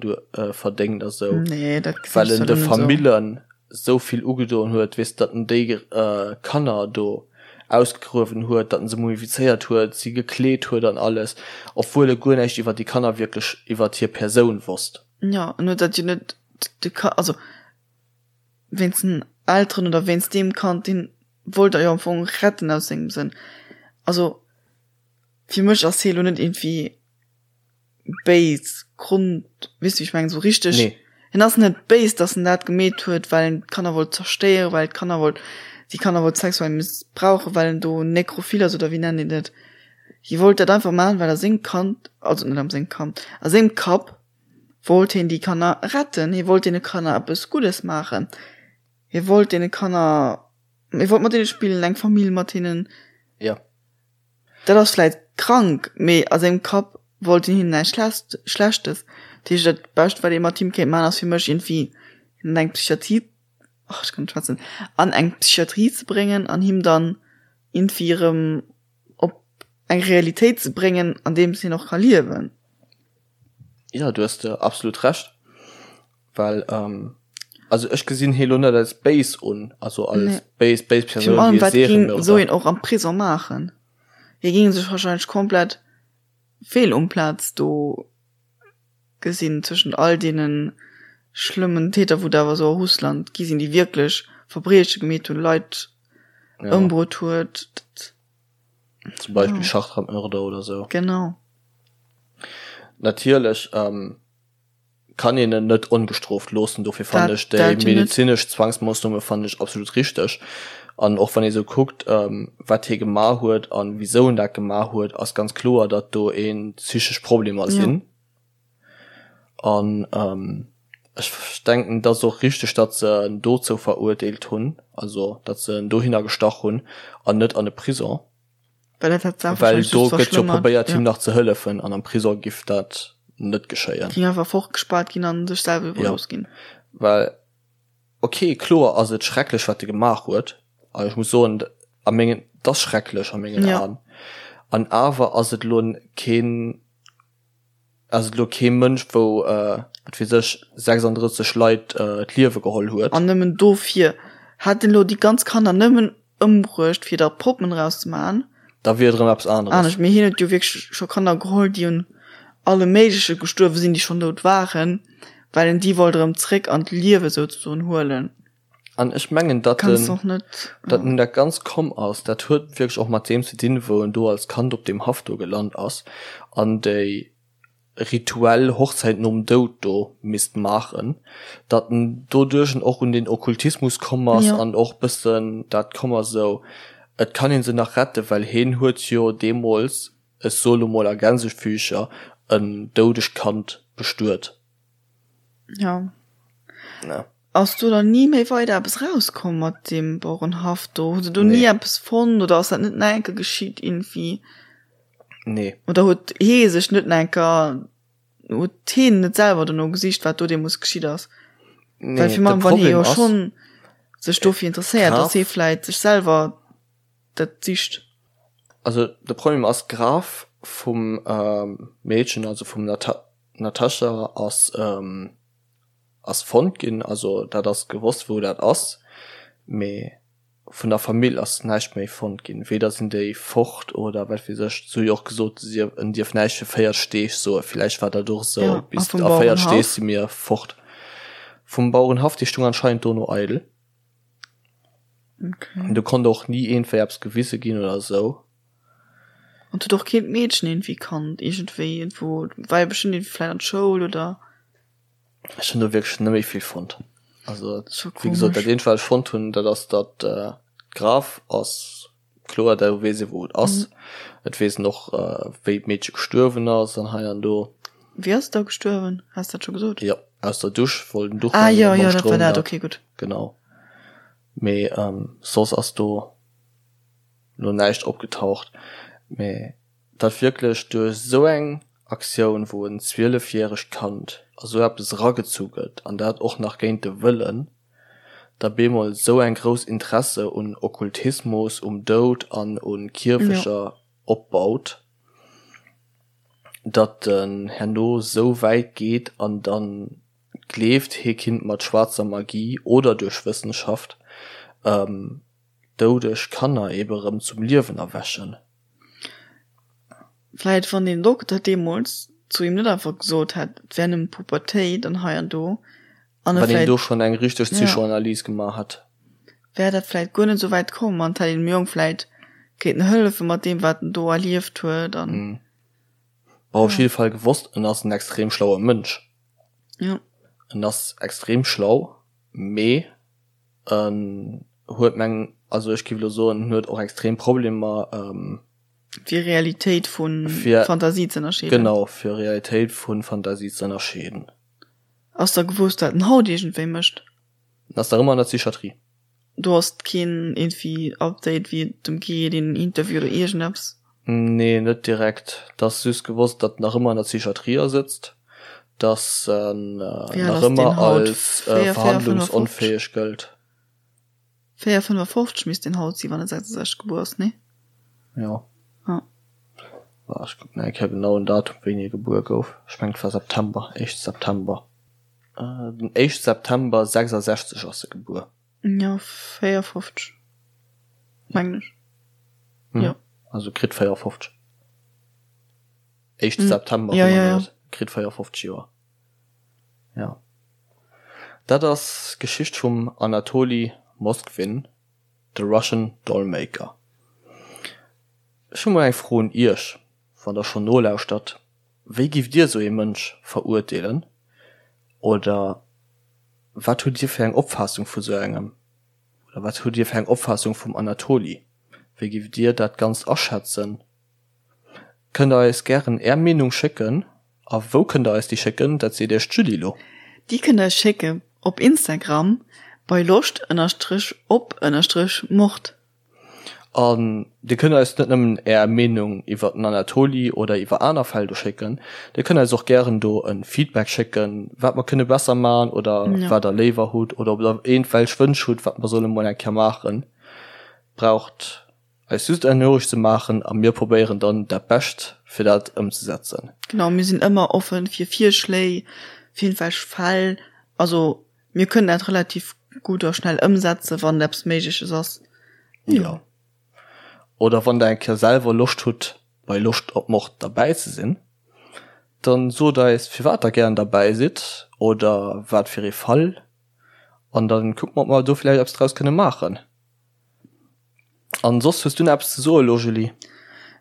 verdéngt a sou, Nee, dat gesinn well ech en zwar de net esou. Famillen esou vill ugedoen huet, weess, datt en déi Kanner do ausgegruewen huet, datt en se mumifizéiert huet, si gekleet huet an alles, obwuel e guer näischt iwwer déi Kanner wierklech, iwwer hir Persoun wosst. Jo, en huet dat jo net de Ka, also wéinst den Elteren oder wéinst deem Kand, deen wollt er jo am Fong retten aus sengem Sënn. Also fir mech ass hie lo net iergendwéi béis Grond, weess du wéi ech mengen, sou richteg. Nee. Hien ass net béis, dass en dat gemeet huet, well en d'Kanner wollt zerstéieren, well d'Kanner wollt, déi Kanner wollt sexuell missbrauchen, well en do Nekrophil ass oder wéi nennt een dat. Hie wollt dat einfach maachen, well a sengem Kand, also net am sengem Kand, a sengem Kapp wollt hien déi Kanner retten, hie wollt deene Kanner eppes Guddes maachen. Hie wollt deene Kanner, hie wollt mat deene spillen, eng Famill mat hinnen. Ja. Dat ass vläit krank, mee a sengem Kapp wollt hien hinnen näischt Schlechtes. Dat heescht, dat Bescht, wat ee mat him kéint maachen, ass fir mech iergendwéi hien an eng Psychiatrie, ach, ech kann net schwätzen, an eng Psychiatrie ze bréngen an him dann iergendwéi erëm op eng Realitéit ze bréngen, an deems hien och ka liewen. Jo, du hues absolut Recht. Well, also ech gesinn hie lo net als béis un, also als béis, béis Persoun, wéi e Serienmörder. Wat géing esou een och am Prison maachen? Hie géing sech wahrscheinlech komplett fehl um Plaz do gesinn, zwëschent all deene schlëmmen Täter, wou et awer esou a Russland gi sinn, déi wierklech Verbrieche gemeet hunn, Leit ëmbruet huet. Zum Beispill Schachtrammörder oder esou. Genau. Natierlech kann een en net ongestrooft loossen. Dofir fannen ech déi medezinesch Zwangsmoossnome fannen ech absolut richteg. An och wann ee sou kuckt, wat hie gemaach huet an wisou en dat gemaach huet, ass ganz kloer, datt do ee psychesch Problemer sinn. An ech denken, et ass och richteg, datt se en dozou verurteelt hunn, also datt se en dohinner gestach hunn an net an e Prison. Well dat hätt d'Saach Well do gëtt jo probéiert him nach ze hëllefen an am Prisong giff dat net geschéien. Ging einfach fortgespaart ginn an sech selwer iwwerlooss ginn. Well ok kloer ass et schrecklech wat e gemaach huet an ech muss soen a mengen et ass schrecklech a mengen Aen an awer ass et elo keen Ass et elo kee Mënsch, wou, wat weess ech, 36 Leit d'Liewe geholl huet. An nëmmen dofir. Hätt en elo déi ganz Kanner nëmmen ëmbruecht, fir der Poppen draus ze maachen. Da wier et erëm eppes aneres. Anescht. Mee hien huet jo wierklech scho Kanner geholl, déi un allem Méigleche gestuerwe sinn, déi schonn dout waren, well en déi wollt erëm zréck an d'Liewe souzesoen huelen. An ech mengen, datt en, datt en dat ganz komm ass, dat huet wierklech och mat deem ze dinn, wou en do als Kand op deem Haff do gelant ass an déi rituell Hochzäit nom Doud do misst maachen, datt en doduerch en och un den Okkultismus komm ass an och bëssen dat komm ass esou, et kann ee se nach retten, well hien huet jo deemools, ech soe lo mol a Gänsefüßcher, en doudegt Kand bestuet. Ja. Ass do dann ni méi weider eppes rauskomm mat deem Bauerenhaff do? Hu se do ni eppes fonnt oder ass dat net nach eng Kéier geschitt iergendwéi? Nee. Oder huet hee sech net nach eng Kéier, huet heen net selwer dono gesicht, wat do deemools geschitt ass? Nee, Well fir de mech, wann hee Problem jo ass, schonn sech dofir interesséiert, dass hee vläit sech selwer dat sicht. Also de Problem ass, d'Graf vum Meedchen, also vum Natascha ass ass fonnt ginn, also dat ass gewosst wou dat ass, mee vun der Famill ass näischt méi fonnt ginn, weder sinn déi fort oder wat weess ech. Se hu jo och gesot, si en dierf näischt fir 40 Deeg soen, villäicht war dat och esou, Ja, a bis vum a 40 Deeg Bauerenhaff? si mir fort vum Bauerenhaff, déi stung anscheinend do no eidel. Okay. Do konnt och ni iergendwéi eppes gewise ginn oder esou. An huet och keen d'Meedchen iergendwéi kannt, iergendwéi iergendwou, war jo bestëmmt iergendwéi vläicht an d'Schoul oder? Ech hunn do wierklech net méi vill fonnt. Also wéi gesot, dat eenzegt wat ech fonnt hunn, dat ass datt d'Graf ass kloer, do weess ee wou et ass. Et weess een och wéi d'Meedche gestuerwen ass an hei an do. Wéi ass et da gestuerwen? Has dat scho gesot? Jo, aus der Dusch, wollt en Duch Ah jo, jo, dat war dat, okay, gutt. Genau. Mee soss ass do lo näischt opgetaucht. Mee datt wierklech duerch esou eng Aktioun, wou en 12 järegt Kand a sou eppes eragezu gëtt, an dat och nach géint de Wëllen, da bemol sou eng grouss Interesse un Okkultismus, um Doud an u Kierfeger opbaut, datt en herno sou wäit geet an dann gleeft, hie kinnt mat schwaarzer Magie oder duerch Wëssenschaft doudeg Kanner ebe rëm zum Liewen erwächen. Vläit wann deen Dokter deemools zu him net einfach gesot hätt, et wär nëmmen d'Pubertéit an hei an do, an e Wann een do schonn eng richteg Psychoanalyse gemaach hätt. Wär dat vläit guer net esou wäit komm an et hätt een dem Jong vläit kéinten hëllefe mat deem wat en do erlieft huet an. Bon, op jidde Fall gewosst, en ass en extrem schlaue Mënsch. Jo. En ass extrem schlau, mee En huet meng, also ech giff elo soen, en huet och extrem Problemer fir Realitéit vu Fantasie ze ënnerscheeden. Genau, fir Realitéit vu Fantasie ze ënnerscheeden. Ass da gewosst wat en haut iergendwéi mécht? En ass nach ëmmer an der Psychiatrie. Do ass keen iergendwéi Update wéi et em geet, een Interview oder iergendeppes? Nee, net direkt. Et ass just gewosst, datt en nach ëmmer an der Psychiatrie asëtzt, datt en nach ëmmer als verhandlungsonfäeg gëllt. 4, 55 misst deen haut sinn, wann e 66 gebuer ass, nee? Jo. Ja. Ech kucken nach eng Kéier genau den Datum, wéini e gebuer gouf. Ech mengen, et war September, éischte September. Den éischte September 66 ass e gebuer. Jo, 54, mengen ech. Jo. Also kritt 54. Éischte September, ja, ja, ja. Kritt 54 Joer. Jo. Dat ass d'Geschicht vum Anatoli Moskvin, the Russian Dollmaker. Ech hu mol eng Fro un Iech, wann der schonn nolauschtert, Wéi giff Dir esou ee Mënsch verurteelen? Oder wat hutt Dir fir eng Opfaassung vu sou engem? Oder wat hutt Dir fir eng Opfaassung vum Anatoli? Wéi giff Dir dat Ganzt aschätzen? Kënnt der eis gären Är Meenung schécken. A wou kënnt der eis déi schécken? Dat seet Iech d'Julie lo. Déi kënnt der eis schécke op Instagram bei loscht ënnerstrich op ënnerstrich mord. An dir kënnt eis net nëmmen är Meenung iwwer den Anatoli oder iwwer aner Fäll do schécken, dir kënnt eis och gären do e Feedback schécken, wat mer kënne besser man oder wat der léiwer hutt oder ob der iergendwelch Wënsch hutt, wat mer solle mol eng Kéier maachen. Braucht eis just eng Noriicht ze maachen a mir probéieren dann dat Bescht fir dat ëmzesetzen. Genau, mir sinn ëmmer offen fir Virschléi, fir iergendwelch Fäll. Also mir kënnen dat relativ gutt a schnell ëmsetzen, wann eppes Méigleches ass. Jo. Oder wann der eng Kéier selwer Loscht hutt bei Loscht op Mord derbäi ze sinn, dann sot eis firwat der gären derbäi sidd oder wat fir ee Fall an dann kucke mer ob mer do vläicht eppes draus kënne maachen. An soss hues du nach eppes ze soen elo Julie?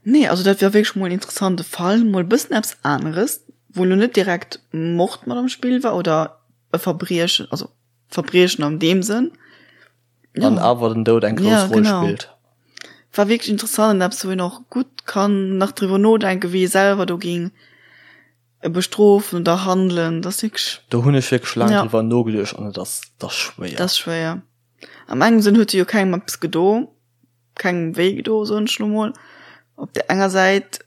Nee, also dat war wierklech mol en interessante Fall, mol e bëssen eppes aneres, wou lo net direkt Mord mat am Spill war oder e Verbriechen, also Verbriechen an deem Sënn. Ja. An awer den Doud eng grouss ja, Roll genau. spillt. War wierklech interessant an eppes, wou een och gutt kann nach driwwer nodenken, wéi ee selwer do ging bestrofen oder handelen. Dat ass wierklech. Do hunn ech wierklech laang ja. driwwer nogeduecht an et ass, dat ass schwéier. Dat ass schwéier. Am engem Sënn huet se jo kengem eppes gedo, kengem wéi gedo, soen ech lo mol. Op der enger Säit,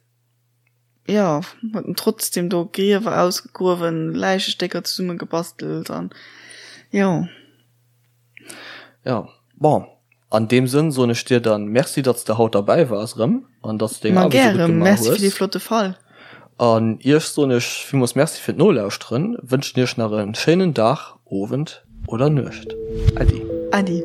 jo, huet en trotzdem do Griewer ausgegruewen, Läichestécker zesummegebastelt an jo. Jo, bon, an deem Sënn soen ech dir dann Merci, datt s de haut derbäi waars erëm an datt s de deng Aarbecht esou gutt gemaach hues. Ma gären, Merci fir dee flotte Fall. An iech soen ech villmools Merci fir d'Nolauschteren, wënschen iech nach e schéinen Dag, Owend oder Nuecht. Äddi. Äddi.